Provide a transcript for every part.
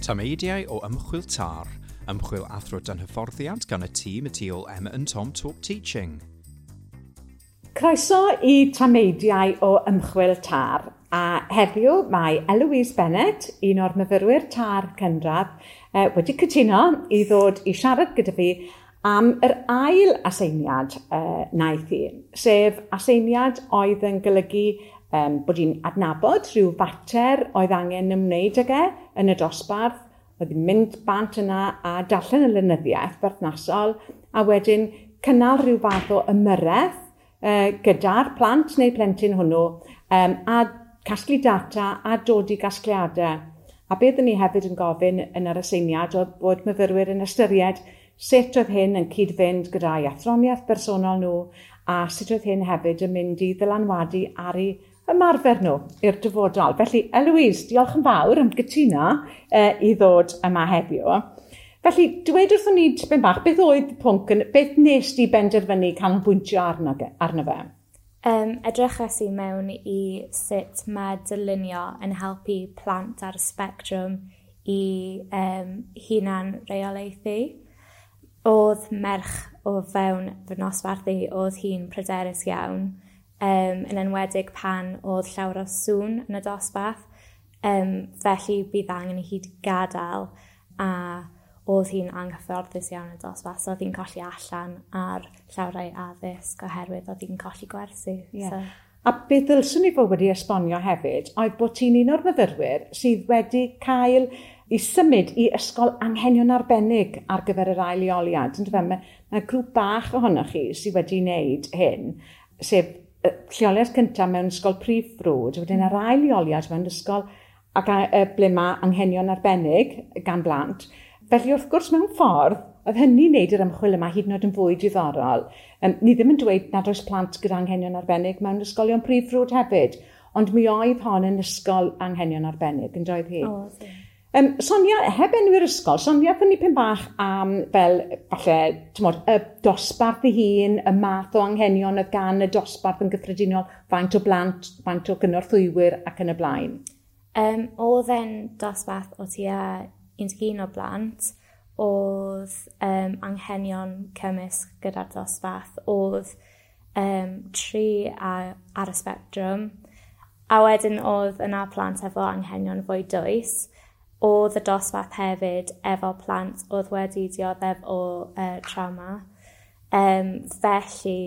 Tameidiau o Ymchwil TAR, ymchwil athro dan hyfforddiant gan y tîm y tu ôl Emma and Tom Talk Teaching. Croeso i Tameidiau o Ymchwil TAR. A heddiw mae Eloise Bennett, un o'r myfyrwyr TAR cynradd, wedi cytuno i ddod i siarad gyda fi am yr ail aseiniad wnaeth hi, sef aseiniad oedd yn golygu bod hi'n adnabod rhyw fater oedd angen ymwneud ag e yn y dosbarth, oedd hi'n mynd bant yna a darllen y lenyddiaeth berthnasol, a wedyn cynnal rhyw fath o ymyrraeth gyda'r plant neu plentyn hwnnw, a casglu data a dod i gasgliadau. A beth ni hefyd yn gofyn yn yr aseiniad oedd bod myfyrwyr yn ystyried sut oedd hyn yn cyd-fynd gyda'i athroniaeth bersonol nhw a sut oedd hyn hefyd yn mynd i ddylanwadu ar eu ymarfer nhw i'r dyfodol. Felly, Eloise, diolch yn fawr am gytuno i ddod yma heddiw. Felly, dweud wrthon ni tipyn bach, beth oedd y pwnc, beth nes di benderfynu canolbwyntio arno fe? Edrychais i mewn i sut mae dylunio yn helpu plant ar y spectrwm i hunan reolaethu. Oedd merch o fewn fy nosbarth i, oedd hi'n pryderus iawn, yn enwedig pan oedd llawer o sŵn yn y dosbarth. Felly bydd angen i hi gadael a oedd hi'n anghyfforddus iawn yn y dosbarth, so oedd hi'n colli allan ar llawer o'i addysg oherwydd oedd hi'n colli gwersi. Yeah. So. A beth ddylswn i fod wedi esbonio hefyd oedd bod ti'n un o'r myfyrwyr sydd wedi cael i symud i ysgol anghenion arbennig ar gyfer yr ail leoliad. Yndyfe? Mae grŵp bach ohonoch chi sydd wedi wneud hyn, sef lleoliad cyntaf mewn ysgol prif ffrwd, wedyn yr ail leoliad mewn ysgol ac ble mae anghenion arbennig gan blant. Felly wrth gwrs mewn ffordd, oedd hynny'n wneud yr ymchwil yma hyd yn oed yn fwy diddorol. Ni ddim yn dweud nad oes plant gyda anghenion arbennig mewn ysgolion prif ffrwd hefyd, ond mi oedd hon yn ysgol anghenion arbennig, yn doedd hi? Oedd. Sonia, heb enwi'r ysgol, Sonia, ddyn ni pyn bach am fel, falle, t'mod, y dosbarth ei hun, y math o anghenion oedd gan y dosbarth yn gyffredinol, faint o blant, faint o gynorthwywyr ac yn y blaen. Oedd e'n dosbarth o tua 11 o blant, oedd anghenion cymysg gyda'r dosbarth, oedd 3 ar y spectrwm, a wedyn oedd yna plant efo anghenion fwy dwys. Oedd y dosbarth hefyd efo plant oedd wedi dioddef o trauma. Felly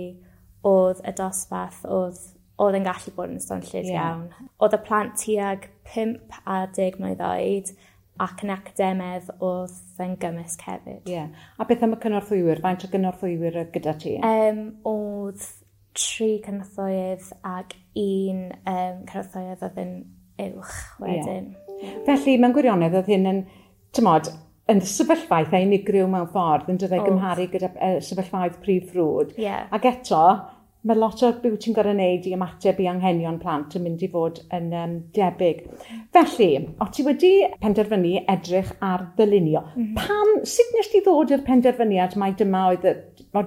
oedd y dosbarth oedd yn gallu bod yn swnllyd iawn. Oedd y plant tuag 5 a 10 mlwydd oed ac yn academedd oedd yn gymysg hefyd. Yeah. A beth am y cynorthwywyr? Faint o gynorthwywyr oedd gyda ti? Oedd 3 cynorthwyydd ac un cynorthwyydd oedd yn uwch wedyn. Yeah. Felly, mewn gwirionedd, oedd hyn yn, t'mod, yn sefyllfa eitha unigryw mewn ffordd, yn dod o'i gymharu gyda sefyllfaoedd prif ffrwd. Yeah. Ac eto, mae lot o beth ti'n gorfod wneud i ymateb i anghenion plant yn mynd i fod yn debyg. Felly, o ti wedi penderfynu edrych ar ddylunio. Pam, sut nes ti ddod i'r penderfyniad mai dyma oedd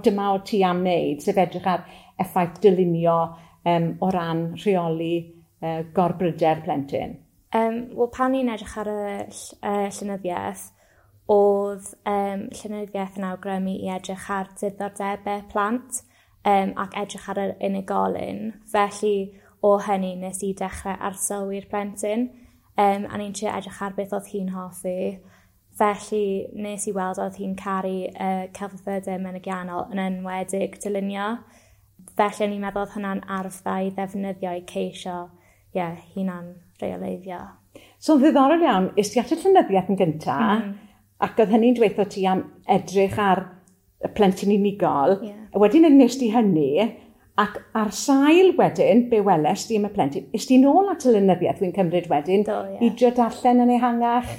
dyma o ti am wneud, sef edrych ar effaith dylunio o ran rheoli gorbryder plentyn? Wel, pan ni'n edrych ar y llenyddiaeth, oedd llenyddiaeth yn awgrymu i edrych ar diddordebau plant ac edrych ar yr unigolyn. Felly, o hynny, nes i dechrau arsylwi'r plentyn, a ni'n trio edrych ar beth oedd hi'n hoffi. Felly, nes i weld oedd hi'n caru celfyddydau mynegiannol yn enwedig dylunio. Felly, ni'n meddwl oedd hwnna'n arf dda i ddefnyddio i ceisio hunan reoleiddio. So, yn ddiddorol iawn, es ti at y llenyddiaeth yn gyntaf, ac oedd hynny'n dweud ti am edrych ar y plentyn unigol. Yeah. Wedyn nes ti hynny, ac ar sail wedyn, be weles di am y plentyn, es ti nôl at y lenyddiaeth wy'n cymryd wedyn, Do, i drio darllen yn ehangach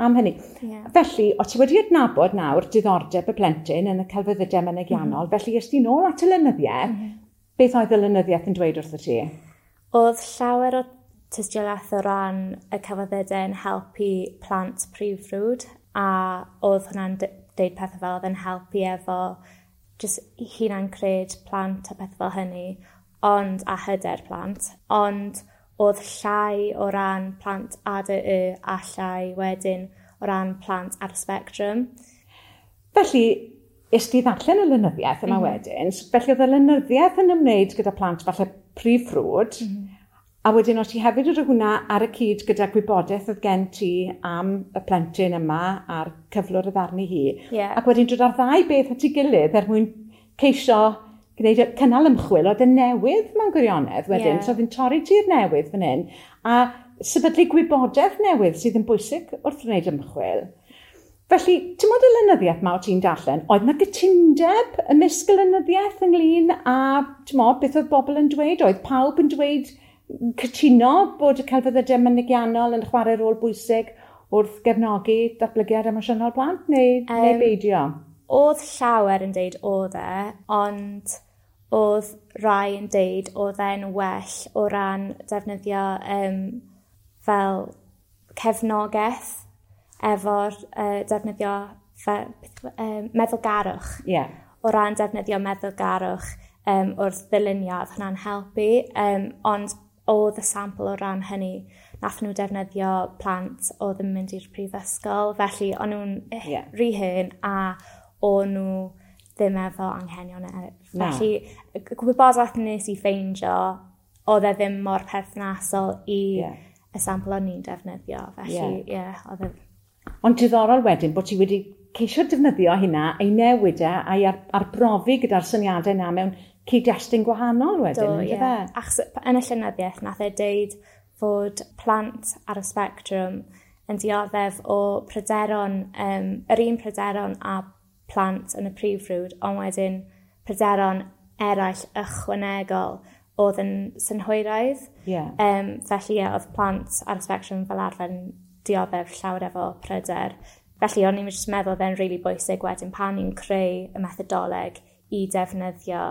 am hynny. Yeah. Felly, o ti wedi adnabod nawr diddordeb y plentyn yn y celfyddydau mynegiannol, felly es ti nôl at y lenyddiaeth, beth oedd y lenyddiaeth yn dweud wrtho ti? Oedd llawer o tystiolaeth o ran y celfyddydau yn helpu plant prif ffrwd, a oedd hwnna'n deud pethau fel oedd yn helpu efo just hunan cred plant a pethau fel hynny, ond a hyder plant. Ond oedd llai o ran plant ADY a llai wedyn o ran plant ar y spectrum. Felly, es ti ddarllen y lenyddiaeth yma wedyn, felly oedd y lenyddiaeth yn ymwneud gyda plant falle prif ffrwd, a wedyn o ti hefyd wedi hwnna ar y cyd gyda gwybodaeth oedd gen ti am y plentyn yma a'r cyflwr oedd arni hi. Ac wedyn dod â'r ddau beth at ei gilydd er mwyn ceisio gwneud cynnal ymchwil oedd yn newydd mewn gwirionedd wedyn. So oedd yn torri tir newydd fan hyn a sefydlu gwybodaeth newydd sydd yn bwysig wrth wneud ymchwil. Felly, ti'n modd y lenyddiaeth ma o ti'n darllen, oedd na gytundeb ymysg y lenyddiaeth ynglyn â, ti'n modd, beth oedd bobl yn dweud? Oedd pawb yn dweud cytuno bod y celfyddydau mynegiannol yn chwarae rôl bwysig wrth gefnogi datblygiad emosiynol plant, neu beidio? Oedd llawer yn deud oedd e, ond oedd rai yn deud oedd e'n well o ran defnyddio fel cefnogaeth efo'r defnyddio meddylgarwch. O ran defnyddio meddylgarwch wrth ddylunio, oedd hwnna'n helpu, ond oedd y sampl o ran hynny, nath nhw defnyddio plant oedd yn mynd i'r prifysgol, felly o'n nhw'n rhy hŷn a o'n nhw ddim efo anghenion eraill. Felly, gwybodaeth nes i ffeindio, oedd e ddim mor perthnasol i y sampl o'n i'n defnyddio. Felly, oedd e... Ond diddorol wedyn bod ti wedi ceisio defnyddio hynna, ei newid e, a'i arbrofi gyda'r syniadau yna mewn cyd-destun gwahanol wedyn. Do, ie. Achos yn y llenyddiaeth nath e deud fod plant ar y spectrwm yn dioddef o pryderon, yr un pryderon a plant yn y prif ffrwd, ond wedyn pryderon eraill ychwanegol oedd yn synhwyraidd. Felly, oedd plant ar y spectrwm fel arfer yn dioddef llawer efo pryder. Felly, o'n i'n jyst meddwl oedd e'n rili bwysig wedyn pan ni'n creu y methodoleg i defnyddio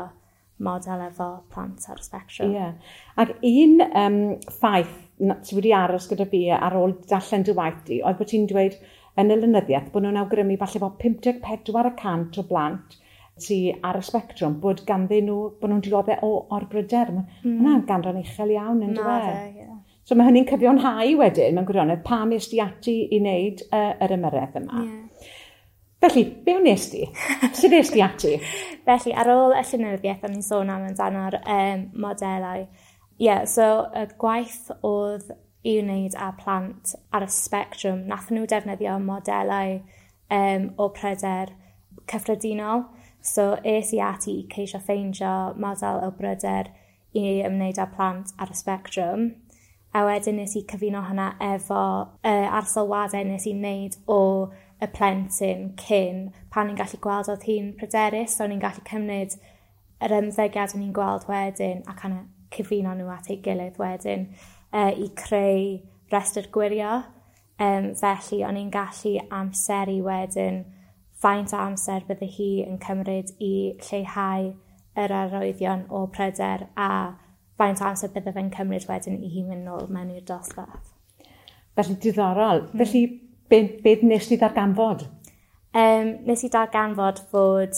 model efo plant ar y spectrwm. Ie. Ac un ffaith sydd wedi aros gyda fi ar ôl darllen dy waith di, oedd bod ti'n dweud yn y lenyddiaeth bod nhw'n awgrymu falle bod 54% o blant sydd ar y spectrwm, bod ganddyn nhw, bod nhw'n dioddef o orbryder. Mae hwnna'n ganran uchel iawn, yn dyw e? Ie. So mae hynny'n cyfiawnhau wedyn, mewn gwirionedd, pam est ti ati i wneud yr ymyrraeth yma. Felly, be wnes di? Sut est ti ati? Felly, ar ôl y llenyddiaeth, o'n i'n sôn am amdano'r modelau. So y gwaith oedd i wneud â plant ar y spectrwm, nath nhw defnyddio modelau o pryder cyffredinol. So es i ati i ceisio ffeindio model o bryder i ymwneud â plant ar y spectrwm. A wedyn nes i cyfuno hwnna efo arsylwadau nes i wneud o y plentyn cyn, pan ni'n gallu gweld oedd hi'n pryderus, so ni'n gallu cymryd yr ymddygiad o'n i'n gweld wedyn a kind of cyfuno nhw at ei gilydd wedyn i creu restr gwirio. Felly o'n i'n gallu amseru wedyn faint o amser bydde hi yn cymryd i lleihau yr arwyddion o pryder a faint o amser bydde fe'n cymryd wedyn i hi mynd nôl mewn i'r dosbarth. Felly diddorol. Felly be nes ti ddarganfod? Nes i darganfod fod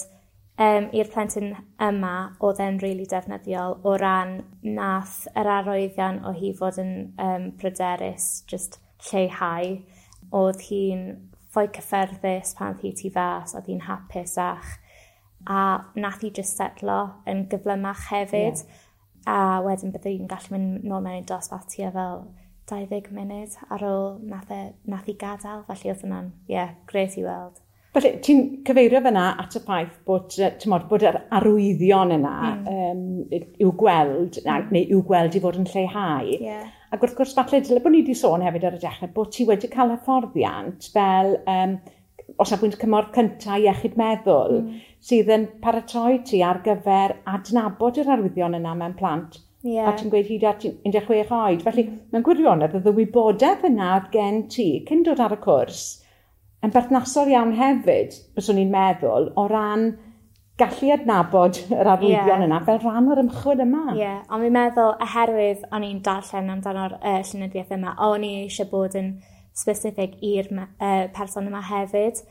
i'r plentyn yma oedd e'n rili defnyddiol o ran nath yr arwyddion o hi fod yn pryderus, just lleihau. Oedd hi'n fwy cyffyrddus pan oedd hi tu fas, oedd hi'n hapusach, a nath hi just setlo yn gyflymach hefyd. A wedyn bydde hi'n gallu mynd nôl mewn i'r dosbarth tua fel 20 munud ar ôl nath hi gadael. Felly oedd hwnna'n, grêt i weld. Felly, ti'n cyfeirio fyna at y ffaith bod, t'mod, bod yr arwyddion yna i'w gweld, neu i'w gweld i fod yn lleihau. Ac wrth gwrs, falle dyle bod ni wedi sôn hefyd ar y dechrau bod ti wedi cael hyfforddiant fel o safbwynt cymorth cyntaf iechyd meddwl, sydd yn paratoi ti ar gyfer adnabod yr arwyddion yna mewn plant. A ti'n gweud hyd at 16 oed. Felly, mewn gwirionedd, oedd y wybodaeth yna oedd gen ti cyn dod ar y cwrs yn berthnasol iawn hefyd, byswn i'n meddwl, o ran gallu adnabod yr arwyddion yna fel rhan o'r ymchwil yma. Ie, ond fi'n meddwl, oherwydd o'n i'n darllen amdano'r llenyddiaeth yma, o'n i eisiau bod yn specific i'r person yma hefyd.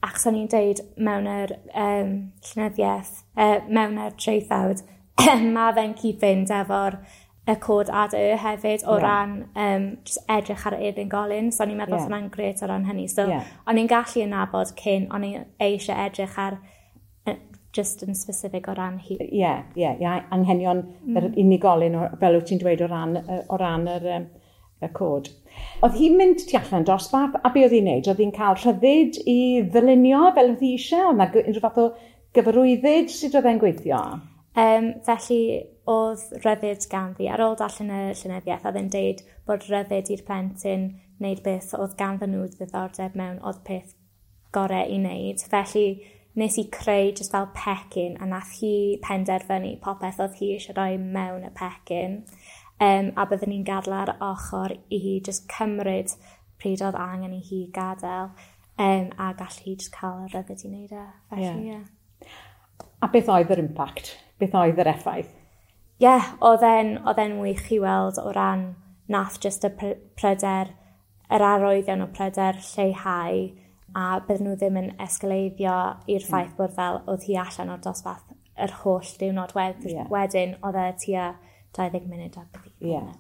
Achos o'n i'n deud mewn yr llenyddiaeth, mewn yr traethawd, mae fe'n cyd-fynd efo'r y cod ADY hefyd o ran just edrych ar yr unigolyn. So o'n i'n meddwl hwnna'n grêt o ran hynny. So o'n i'n gallu nabod cyn, o'n i'n eisiau edrych ar just yn specific o ran hi. Ie, ie, ie, anghenion yr unigolyn, fel wyt ti'n dweud, o ran yr, y cod. Oedd hi'n mynd tu allan dosbarth, a be oedd hi'n neud? Oedd hi'n cael rhyddid i ddylunio fel oedd hi eisiau? Oedd 'na unrhyw fath o gyfarwyddyd? Sut oedd e'n gweithio? Felly, oedd rhyddid ganddi. Ar ôl darllen y llenyddiaeth, oedd e'n deud bod rhyddid i'r plentyn wneud beth oedd ganddyn nhw ddiddordeb mewn, oedd peth gorau i wneud. Felly, nes i creu just fel pecyn, a nath hi penderfynu popeth oedd hi eisiau rhoi mewn y pecyn. A byddwn ni'n gadael ar ochr i hi just cymryd pryd oedd angen i hi gadael, a gall hi just cael y rhyddid i wneud e. Felly, ie. A beth oedd yr impact? Beth oedd yr effaith? Ie, yeah, oedd e'n wych i weld o ran nath just y pryder, yr arwyddion o pryder lleihau, a bydden nhw ddim yn esgaleiddio i'r ffaith bod fel oedd hi allan o'r dosbarth yr holl diwrnod wedyn, oedd e tua 20 munud a beth.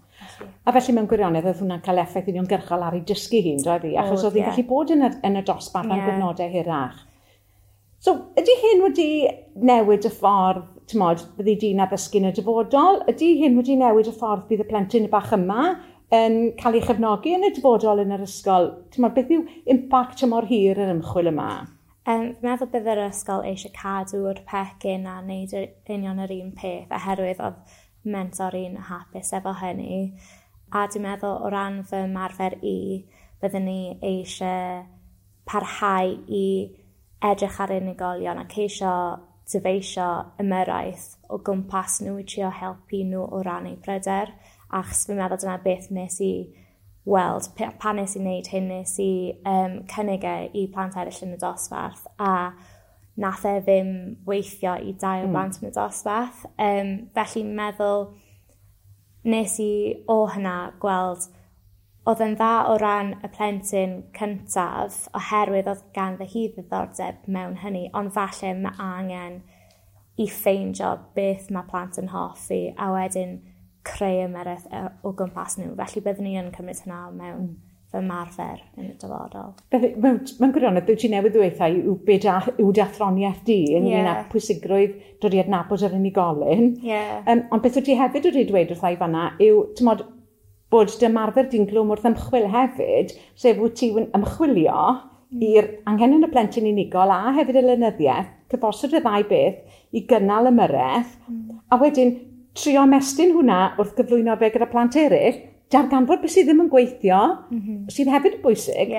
A felly mewn gwirionedd oedd hwnna'n cael effaith uniongyrchol ar ei dysgu hi'n, doedd hi? Achos oedd hi'n gallu bod yn y dosbarth am gyfnodau hirach. So, ydy hyn wedi newid y ffordd, ti'mod, byddi di'n addysgu yn y dyfodol? Ydy hyn wedi newid y ffordd bydd y plentyn bach yma yn cael ei chefnogi yn y dyfodol yn yr ysgol? Ti'mod, beth yw impact tymor hir yr ymchwil yma? Fi'n meddwl bydd yr ysgol eisiau cadw'r pecyn a wneud union yr un peth, oherwydd oedd mentor i'n hapus efo hynny. A dwi'n meddwl o ran fy ymarfer i, byddwn ni eisiau parhau i edrych ar unigolion a ceisio dyfeisio ymyrraeth o gwmpas nhw i trio helpu nhw o ran eu pryder. Achos fi'n meddwl dyna beth nes i weld. Pan nes i wneud hyn, nes i cynnig e i plant eraill yn y dosbarth, a nath e ddim weithio i dau o blant yn y dosbarth. Felly meddwl nes i o hynna gweld oedd yn dda o ran y plentyn cyntaf, oherwydd oedd ganddo hi ddiddordeb mewn hynny, ond falle mae angen i ffeindio beth mae plant yn hoffi a wedyn creu ymyrraeth o gwmpas nhw. Felly byddwn ni yn cymryd hynna mewn fy ymarfer yn y dyfodol. Mewn gwirionedd, beth ti newydd ddweud yw yw dy athroniaeth di ynglyn â pwysigrwydd dod i adnabod yr unigolyn. Ond beth wyt ti hefyd wedi dweud wrtha i fanna yw, ti'mod, bod dy ymarfer di'n glwm wrth ymchwil hefyd, sef wyt ti'n ymchwilio i'r anghenion y plentyn unigol a hefyd y lenyddiaeth, cyfosod y ddau beth i gynnal ymyrraeth, a wedyn trio ymestyn hwnna wrth gyflwyno fe gyda plant eraill, darganfod beth sydd ddim yn gweithio, sydd hefyd yn bwysig,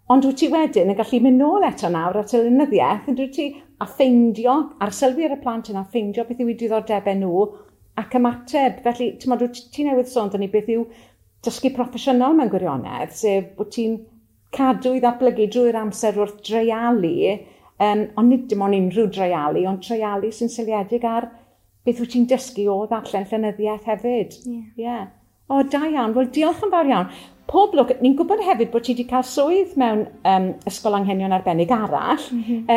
ond wyt ti wedyn yn gallu mynd nôl eto nawr at y lenyddiaeth, yn dwyt ti, a ffeindio, arsylwi ar y plant yna, ffeindio beth yw eu diddordebau nhw, ac ymateb. Felly, ti'mod, wyt ti newydd sôn dyn ni beth yw dysgu proffesiynol mewn gwirionedd, sef bod ti'n cadw i ddatblygu drwy'r amser wrth dreialu, ond nid dim ond unrhyw dreialu, ond treialu sy'n seiliedig ar beth wyt ti'n dysgu o ddarllen llenyddiaeth hefyd. O, da iawn. Wel, diolch yn fawr iawn. Pob lwc. Ni'n gwybod hefyd bod ti wedi cael swydd mewn ysgol anghenion arbennig arall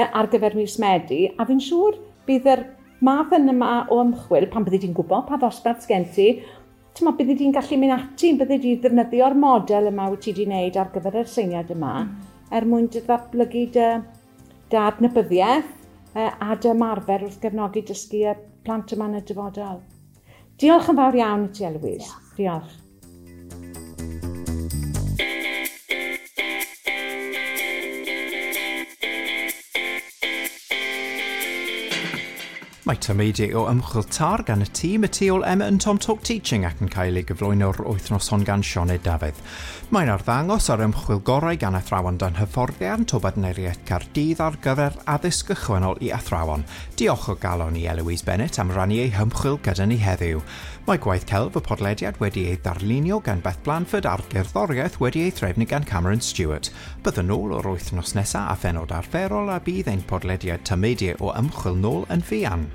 ar gyfer mis Medi, a fi'n siŵr bydd yr math yma o ymchwil, pan byddi di'n gwybod pa ddosbarth sgen ti, ti'mod, byddi di'n gallu mynd ati, byddi di ddefnyddio'r model yma wyt ti wedi wneud ar gyfer yr syniad yma, er mwyn dy ddatblygu dy adnabyddiaeth a dy ymarfer wrth gefnogi dysgu y plant yma yn y dyfodol. Diolch yn fawr iawn i ti, Eloise. Diolch. Mae tameidiau o ymchwil TAR gan y tîm y tu ôl Emma and Tom Talk Teaching ac yn cael ei gyflwyno'r wythnos hon gan Sioned Dafydd. Mae'n arddangos ar ymchwil gorau gan athrawon dan hyfforddiant o Bartneriaeth Caerdydd ar gyfer addysg ychwanegol i athrawon. Diolch o galon i Eloise Bennett am rannu ei hymchwil gyda ni heddiw. Mae gwaith celf y podlediad wedi ei ddarlunio gan Beth Blanford a'r gerddoriaeth wedi ei threfnu gan Cameron Stewart. Byddwn nôl o'r wythnos nesaf a phenod arferol a bydd ein podlediad tameidiau o ymchwil nôl yn fuan.